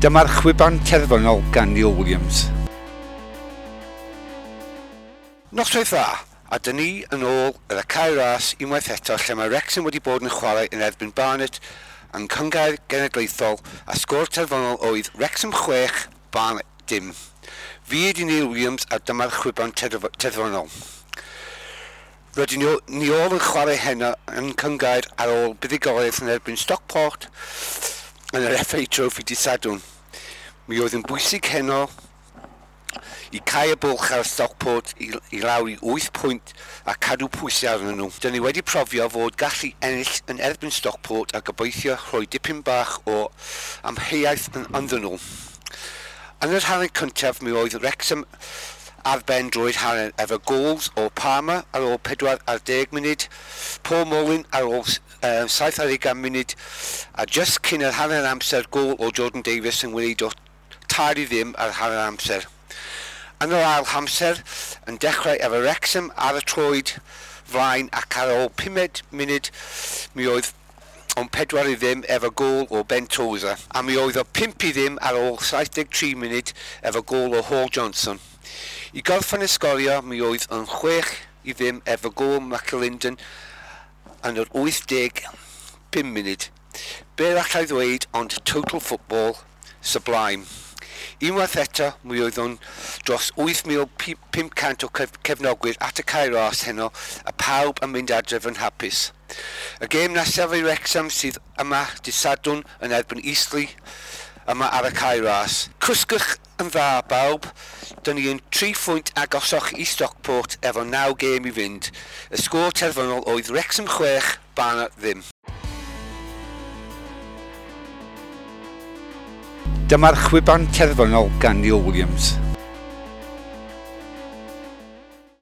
Dyma'r chwiban terfynol gan Neil Williams. Noswaith dda, a dyn ni yn ôl ar y Cae Ras unwaith eto lle mae Wrexham wedi bod yn chwarae yn erbyn Barnet yn Cynghrair Genedlaethol a sgôr terfynol oedd Wrexham 6, Barnet dim. Fi ydi Neil Williams a dyma'r chwiban terfynol. Rydyn ni ôl yn chwarae heno yn Cynghrair ar ôl buddugoliaeth yn erbyn Stockport yn yr FA Trophy dydd Sadwrn. Mi oedd yn bwysig heno i cau y bwlch ar Stockport i lawr i 8 pwynt a cadw pwysau arnyn nhw. Dyn ni wedi profio fod gallu ennill yn erbyn Stockport a gobeithio rhoi dipyn bach o amheuaeth yn ynddyn nhw. Yn yr hanner cyntaf mi oedd Wrexham ar ben drwy'r hanner efo goals o Palmer ar ôl 40 munud, Paul Mullin ar ôl 70 munud a just cyn yr hanner amser gôl o Jordan Davies yn wneud o 3-0 ar hanner amser. Yn yr ail amser yn dechrau efo Wrexham ar y troed flaen ac ar ôl 5 munud mi oedd o'n 4-0 efo gôl o Ben Tozer a mi oedd o 5-0 ar ôl 73 munud efo gôl o Hall Johnson. I gorffen y sgorio mi oedd yn 6-0 efo gôl McAlinden yn yr 85 munud. Be allai ddweud ond total football sublime. Unwaith eto, mi oedd o'n dros 8,500 o cefnogwyr at y Cae Ras heno a pawb yn mynd adref yn hapus. Y gêm nesaf i Wrexham sydd yma dydd Sadwrn yn erbyn Eastleigh yma ar y Cae Ras. Cwsgwch yn dda bawb, dyn ni yn 3 phwynt agosach i Stockport efo 9 gêm i fynd. Y sgôr terfynol oedd Wrexham 6, Barnet ddim. Dyma'r chwiban terfynol gan Neil Williams.